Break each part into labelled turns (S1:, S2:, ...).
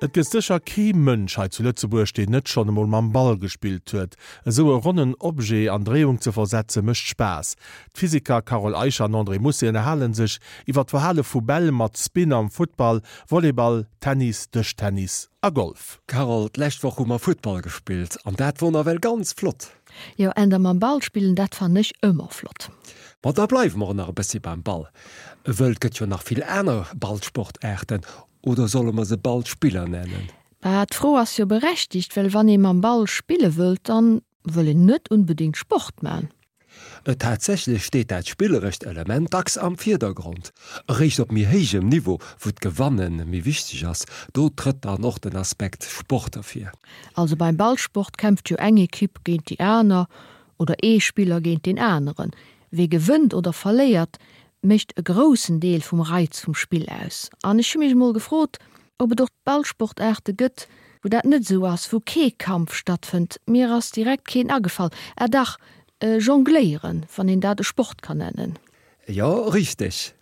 S1: Et gëtt sécher kee Mënsch hei zu Lëtzebuerg, deen net schonn emol mam Ball gespillt huet. Esou e ronnen Objet an Dréiung ze versetze mécht Spaass. D'Physiker Carole Eicher an André Mousset ënnerhale sech iwwer d'Verhale vu Bäll mat Spin am Futtball, Volleyball, Tennis, Dëschtennis a Golf.
S2: Carole, d'lescht Woch hu mer Futtball gespillt an dat wor nawell ganz flott.
S3: Jo, änder mam Ball spillen, dat fannen ech ëmmer flott.
S2: Ma da bleiwe mer och nach e bëssi beim Ball, wëll et gëtt jo nach vill aner Ballsportaarten, oder solle mer se Ballspiller nennen?
S3: Bah, d'Fro ass jo berechtigt, well wann ee mam Ball spille wëllt, dann wëll een net unbedingt Sport man.
S2: Tatsächlech steet dat spillerescht Element dacks am Virdergrond. Eréischt op méi héijem Niveau, wou d'Gewanne méi wichteg ass, do trëtt dann och den Aspekt Sport ervir.
S3: Also beim Ballsport kämpft jo eng Ekipp géint déi aner oder ee Spiller géint deen aneren. Wee gewënnt oder verléiert, mécht e groussen Deel vum Reiz vum Spill aus. An ech hu mech emol gefrot, ob et och Ballsportaarte gëtt, wou dat net esou ass, wou kee Kampf stattfënnt. Mir ass direkt keen agefall. Ah dach, Jongléieren, wann een dat e Sport kann nennen.
S2: Jo, richteg.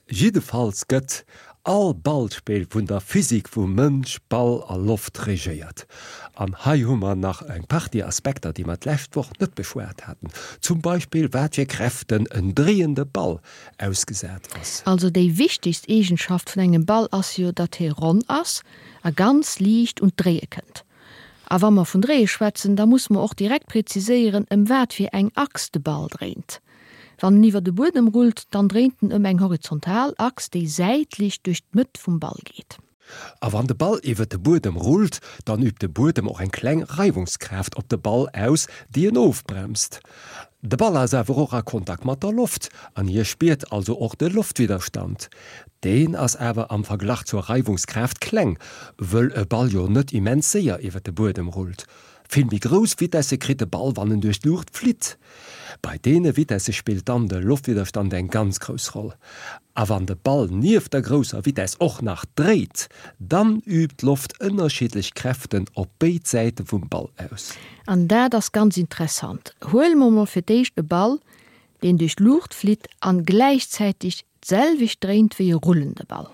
S2: Jiddefalls gëtt all Ballspill vun der Physik vu Mënsch, Ball a Loft regéiert. An hei hu mer nach eng Partie Aspekter, déi mer d'lescht Woch net beschwat haten, zum Beispill wat fir Kräften en dréiende Ball ausgesat ass.
S3: Also déi wichtegst Eegenschaft vun engem Ball ass jo, datt hie ronn ass a ganz liicht un d'Dréie kënnt. A wa mer vun Dréie schwätzen, da musse mer och direkt preziséieren, ëm wat fir eng Achs de Ball dréint. Wann en iwwer de Buedem rullt, dann dréint en ëm eng horizontal Achs, déi säitlech duerch d'Mëtt vum Ball geet.
S2: A wann de Ball iwwer de Buedem rullt, dann übt de Buedem och eng kleng Reiwungskraaft op de Ball aus, déi en ofbremst. De Ball ass awer och a Kontakt mat der Loft an hie spiert also och de Loftwidderstand. Deen ass awer am Verglach zur Reiwungskraaft kleng, wëll e Ball jo net immens séier iwwer de Buedem rullt. Vill méi grouss Vitesse kritt de Ball, wann en duerch d'Luucht flitt. Bei deene Vitesse spillt dann de Loftwidderstand eng ganz grouss Roll. A wann de Ball nieft der grousser Vitess och nach dréit, dann übt d'Loft ënnerschiddlech Kräften op béid Säite vum Ball aus.
S3: An dat ass ganz interessant. Huele mer mol fir d'éischt e Ball, deen duerch d'Luucht flitt an gläichzäiteg d'selwecht dréint wéi e rullende Ball.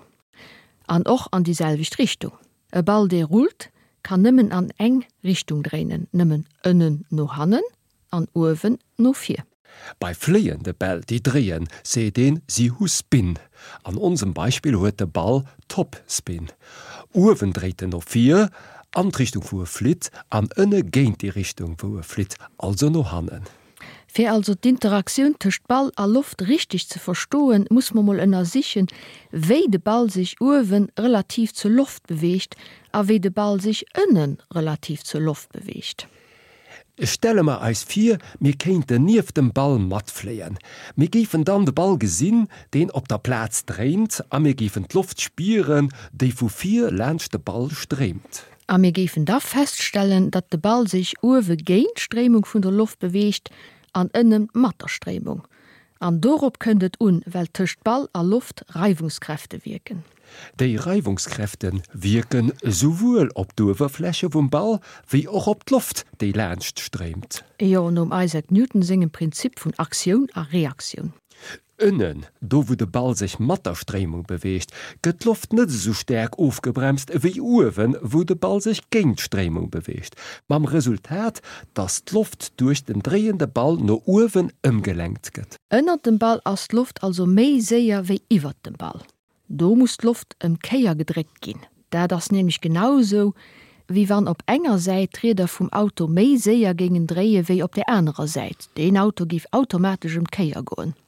S3: An och an déi selwecht Richtung. E Ball dee rullt, kann nëmmen an eng Richtung dréinen, nëmmen ënnen no hannen an uewen no vir.
S2: Bei fléiende Bäll, déi dréien, seet een, si hu Spin. An onsem Beispill huet de Ball Topspin. Uewen dréit en no vir, an d'Richtung wou e flitt, an ënne géint déi Richtung wou e flitt, also no hannen.
S3: Fir also d'Interaktioun tëscht Ball a Loft richteg ze verstoen, muss mer mol ënnersichen, wéi de Ball sech uewen relativ zur Loft beweegt a wéi de Ball sech ënnen relativ zur Loft beweegt.
S2: Stelle mer eis vir, mir kéinten nieft dem Ball matfléien. Mir géifen dann de Ball gesinn, deen op der Plaz dréint, a mir géifen d'Loft spieren, déi vu vir laanscht de Ball stréimt.
S3: A mir géifen da feststellen, datt de Ball sech uewe géint d'Stréimung vun der Loft beweegt an ënnen mat der Stréimung. An dorop kënnt et un, well tëscht Ball a Loft Reiwungskräfte wierken.
S2: Déi Reiwungskräfte wierken esouwuel op d'Uewerfläche vum Ball wéi och op d'Loft, déi laanscht stréimt.
S3: Jo, nom Isaac Newton sengem Prinzip vun Aktioun a Reaktioun.
S2: Ënnen, do wou de Ball sech mat der Stréimung beweegt, gëtt d'Loft net esou staark ofgebremst ewéi uewen, wou de Ball sech géint d'Stréimung beweegt, mam Resultat, dass d'Loft duerch den dréiende Ball no uewen ëmgelenkt gëtt.
S3: Ënnert dem Ball ass d'Loft also méi séier wéi iwwert dem Ball. Do muss d'Loft ëm d'Kéier gedréckt ginn. Dat ass nämlech genau esou, wéi wann op enger Säit d'Rieder vum Auto méi séier géingen dréie wéi op där anerer Säit. Deen Auto géif automatesch ëm d'Kéier goen.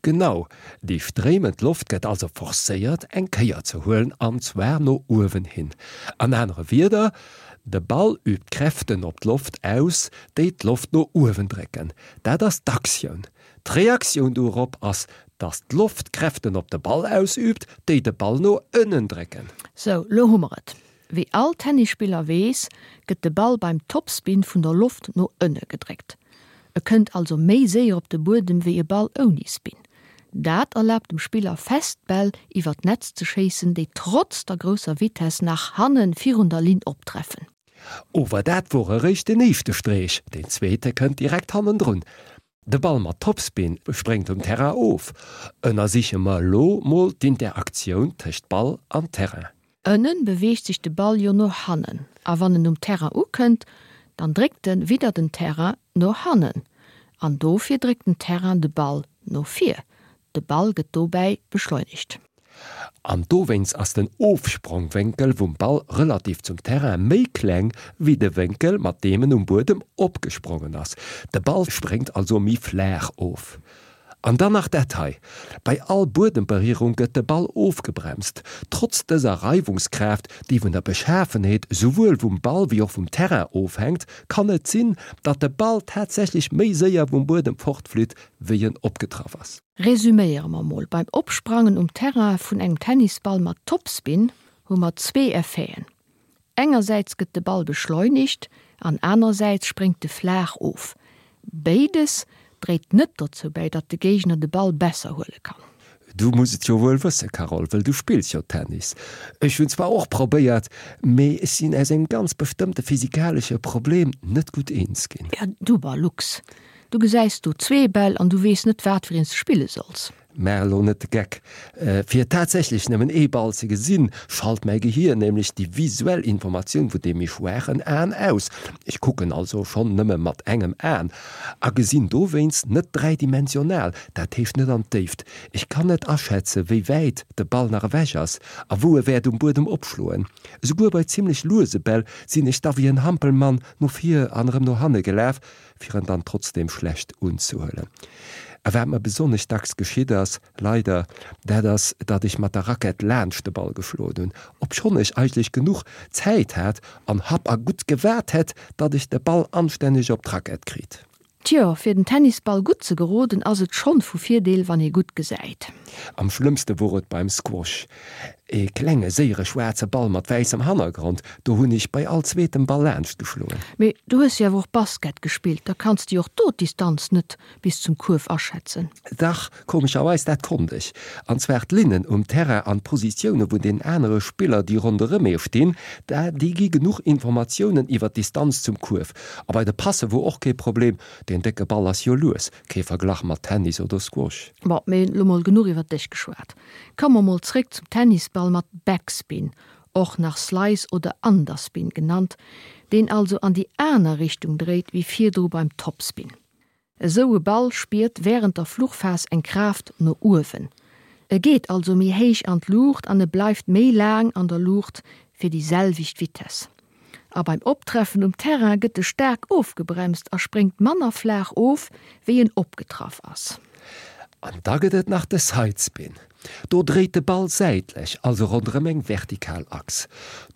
S2: Genau, déi stréimend Loft gëtt also forcéiert eng Kéier ze huelen, an zwar no uewen hin. An anere Wierder, de Ball übt Kräften op d'Loft aus, déi d'Loft no uewen drécken. Dat ass d'Aktioun. D'Reaktioun dorop ass, dass d'Loft Kräften op de Ball ausüübt, déi de Ball no ënnen drécken.
S3: Sou, lo hu mer et. Wéi all Tennisspiller weess, gëtt de Ball beim Topspin vun der Loft no ënne gedréckt. E kënnt also méi séier op de Buedem wéi e Ball ouni Spin. Dat erlaabt dem Spiller fest d'Bäll iwwer d'Netz ze schéissen, déi trotz der grousser Vitess nach hanne virun der Linn optreffen.
S2: Ower dat wor eréischt den éischte Streech, deen zweete kënnt direkt hannendrun. De Ball mat Topspin spréngt um Terrain of. Ënnersiche mer elo mol d'Interaktioun tëscht Ball an Terrain.
S3: Ënnen beweegt sech de Ball jo no hannen a wann en um Terrain ukënnt, dann dréckt en widder den Terrain no hannen an dofir dréckt den Terrain de Ball no vir. De Ball gëtt dobäi beschleunegt.
S2: An dowéinst ass den Ofsprongwénkel vum Ball relativ zum Terrain méi kleng wéi de Wénkel mat deem en um Buedem opgesprongen ass. De Ball spréngt also méi flaach of. An dann nach dat hei, Bei all Buedemberierung gëtt de Ball ofgebremst. Trotz dëser Reiwungskraaft, déi vun der Beschafenheet souwuel vum Ball wéi och vum Terrain ofhänkt, kann et sinn, datt de Ball tatsächlech méi séier vum Buedem fortflitt, wéi en opgetraff ass.
S3: Resüméiere mer mol, Beim Opsprangen um Terrain vun engem Tennisball mat Topspin hu mer zwee Effeten, Engersäits gëtt de Ball beschleunigt an anerersäits spréngt e flaach of. Béides dréit net dozou bäi, datt de Géigner de Ball besser huele kann.
S2: Du muss et jo wuel wësse Carole, wëll du spills jo Tennis. Ech hunn zwar och probéiert, mee ech sinn aus engem ganz bestëmmte physikalesche Problem net gutt eens ginn.
S3: Ja du Balux, du gesäis do zwee Bäll an du weess net wat fir een s de spille solls.
S2: Maach elo net de Geck. Fir tatsächlech nëmmen ee Ball ze gesinn, schalt mäi Gehier nämlech déi visuell Informatioun vun deem méi schwaachen Aen aus. Ech kucken also schonn nëmme mat engem Aen a gesinn dowéinst net dräidimensional, dat heescht net an d'Déift. Ech kann net aschätze wéi wäit de Ball nach ewech ass a wou e wäert um Buedem opschloen. Esouguer bei zimmlech luese Bäll sinn ech da wéi en Hampelmann no vir an erëm no hanne gelaf, fir en dann trotzdem schlecht unzehuelen. A wat mer besonnesch dacks geschitt ass, leider, dat ass, datt ech mat der Rackett laanscht de Ball geschloen hunn, obschonn ech eigentlech genuch Zäit hat an happ a gutt gewaart hätt, datt ech de Ball anstänneg op d'Rackett kritt.
S3: Tjo, fir den Tennisball gutt ze geroden, ass et schonn vu Virdeel, wann ee gutt gesäit.
S2: Am schlëmmste wor et beim Squash. E klenge séiere schwaarze Ball mat wäissem Hannergrond, do hunn ech bei all zweetem Ball laanscht geschloen.
S3: Mee du hues jo awer och Basket gespillt, da kanns de jo och do d'Distanz net bis zum Kuerf aschätzen.
S2: Dach, komescherweis, dat konnt ech. An zwar d'Linnen um Terrain an d'Positioune vun den anere Spiller, déi ronderëm ee stinn, déi gi genuch Informatiounen iwwer d'Distanz zum Kuerf. A bei de Passe wor och kee Problem, deen décke Ball ass jo lues, kee Verglach mat Tennis oder Squash.
S3: Bon, mee lo mol genuch iwwer dech geschwat. Komme mer mol zréck zum Tennisball mat Backspin, och nach Slice oder Underspin genannt, deen also an déi aner Richtung dréit wéi virdru beim Topspin. Esou e Ball spiert wärend der Fluchphas eng Kraaft no uewen. E geet also méi héich an d'Luucht an e bleift méi laang an der Luucht fir déi selwecht Vitess. A beim Optreffen um Terrain gëtt e staark ofgebremst a spréngt manner flaach of, wéi en opgetraff ass.
S2: An da gëtt et nach de Sidespin. Do dréit de Ball säitlech, also ronderëm eng vertikal Achs.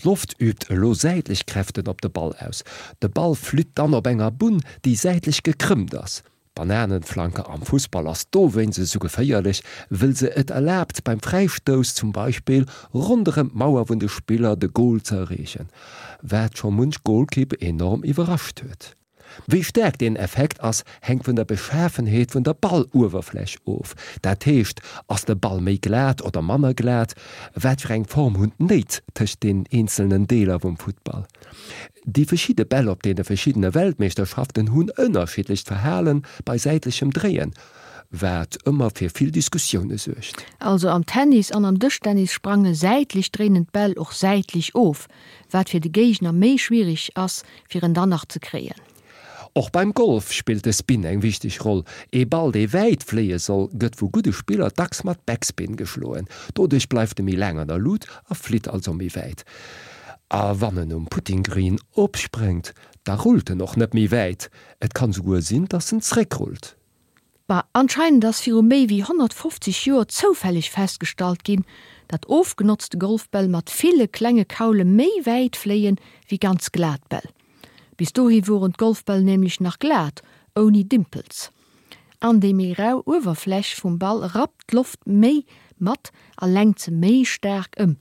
S2: D'Loft übt elo säitlech Kräften op de Ball aus. De Ball flitt dann op enger Bunn, déi säitlech gekrëmmt ass. D'Bananenflanke am Fussball ass dowéinst esou geféierlech, wëll se et erlaabt beim Fräistouss zum Beispill ronderëm d'Mauer vun de Spiller de Goal ze erreechen, wat scho munch Golkipp enorm iwwerrascht huet. Wéi staark deen Effekt ass, hänkt vun der Beschafenheet vun der Balluewerfläch of. Dat heescht, ass de Ball méi glat oder manner glat, wat fir eng Form hunn d'Néit tëscht den eenzelnen Deeler vum Futtball. Déi verschidde Bäll op deene verschiddene Weltmeeschterschaften hunn ënnerschiddlecht Verhale bei säitlechem Dréien, wat ëmmer fir vill Diskussioune suergt.
S3: Also am Tennis an am Dëschtennis sprange säitlech dréinend Bäll och säitlech of, wat fir de Géigner méi schwiereg ass, fir en dann nach ze kréien.
S2: Och beim Golf spillt de Spin eng wichteg Roll. Ee Ball, dee wäit fléie soll, gëtt vu gudde Spiller dacks mat Backspin geschloen. Doduerch bleift e méi laang an der Lut a flitt also méi wäit. A wann en um Putting Green opspréngt, da rullt en och net méi wäit. Et kann souguer sinn, dass en zréckrullt.
S3: Bah, anscheinend ass viru méi wéi 150 Joer zoufälleg festgestallt ginn, datt ofgenotzte Golfbäll mat ville klenge Kaule méi wäit fléien wéi ganz glat Bäll. Bis dohi woren d'Golfbäll nämlech nach glat, ouni Dimpels. An déi méi rau Uewerfläch vum Ball rappt d'Loft méi mat a lenkt se méi staark ëm.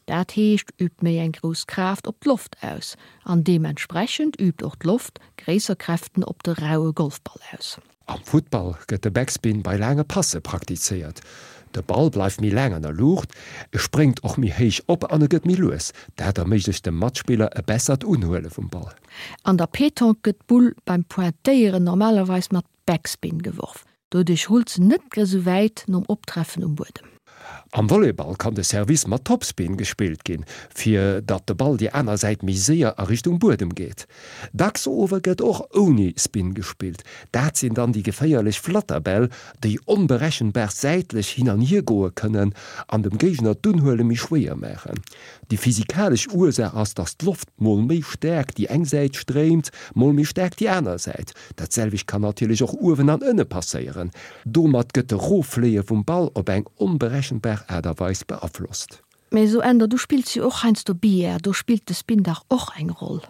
S3: Dat heescht, übt méi eng grouss Kraaft op d'Loft aus an deementsprechend übt och d'Loft gréisser Kräften op de raue Golfball aus.
S2: Am Futtball gëtt de Backspin bei laange Passe praktizéiert. De Ball bleift méi laang an der Luucht, e spréngt och méi héich op an e gëtt méi lues. Dat erméiglecht dem Matspiller e bessert Unhuele vum Ball.
S3: An der Petanque gëtt d'Bull beim Pointéieren normalerweis mat Backspin geworf. Doduerch rullt se net grë sou wäit nom Optreffen um Buedem.
S2: Am Volleyball kann de Service mat Topspin gespillt ginn, fir datt de Ball déi aner Säit méi séier a Richtung Buedem geet. Dacks ower gëtt och ouni Spin gespillt. Dat sinn dann déi geféierlech Flatterbäll, déi onberechenbar säitlech hin an hier goe kënnen an dem Géigner d'Unhuele méi schwéier maachen. Déi physikalesch Ursaach ass, datt d'Loft mol méi staark déi eng Säit stréimt, mol méi staark déi aner Säit. Dat selwecht kann natierlech och uewen an ënne passéieren. Domat gëtt de Roffléie vum Ball op eng onberechenbar Aart a Weis beaflosst.
S3: Mee so Änder, du spills jo och heiansdo Billard, do spillt de Spin dach och eng Roll?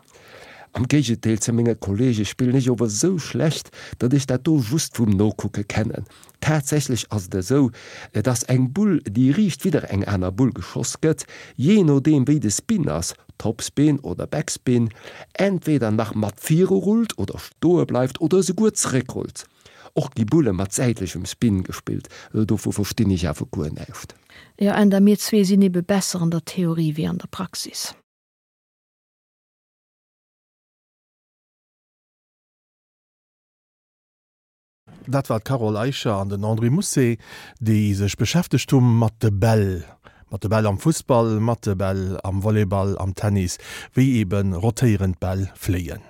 S2: Am Géigendeel zu menge Kollege spillen ech ower sou schlecht, datt ech dat do just vum Nokucke kennen. Tatsächlech ass et esou, dass eng Bull, déi riicht widder eng aner Bull geschoss gëtt, jee nodeem wéi de Spin ass, Topspin oder Backspin, entweder nach mat viru rullt oder stoe bleift oder esouguer zeréckrullt. Och gi Bulle mat säitlechem Spin gespillt, dovu verstinn ech awer guer näischt.
S3: Jo, Änder, mir zwee sinn ebe besser an der Theorie wéi an der Praxis.
S1: Dat war d'Carole Eicher an den André Mousset, déi sech beschäftegt hu mat de Bäll. Mat de Bäll am Fussball, mat de Bäll am Volleyball, am Tennis, wéi ebe rotéierend Bäll fléien.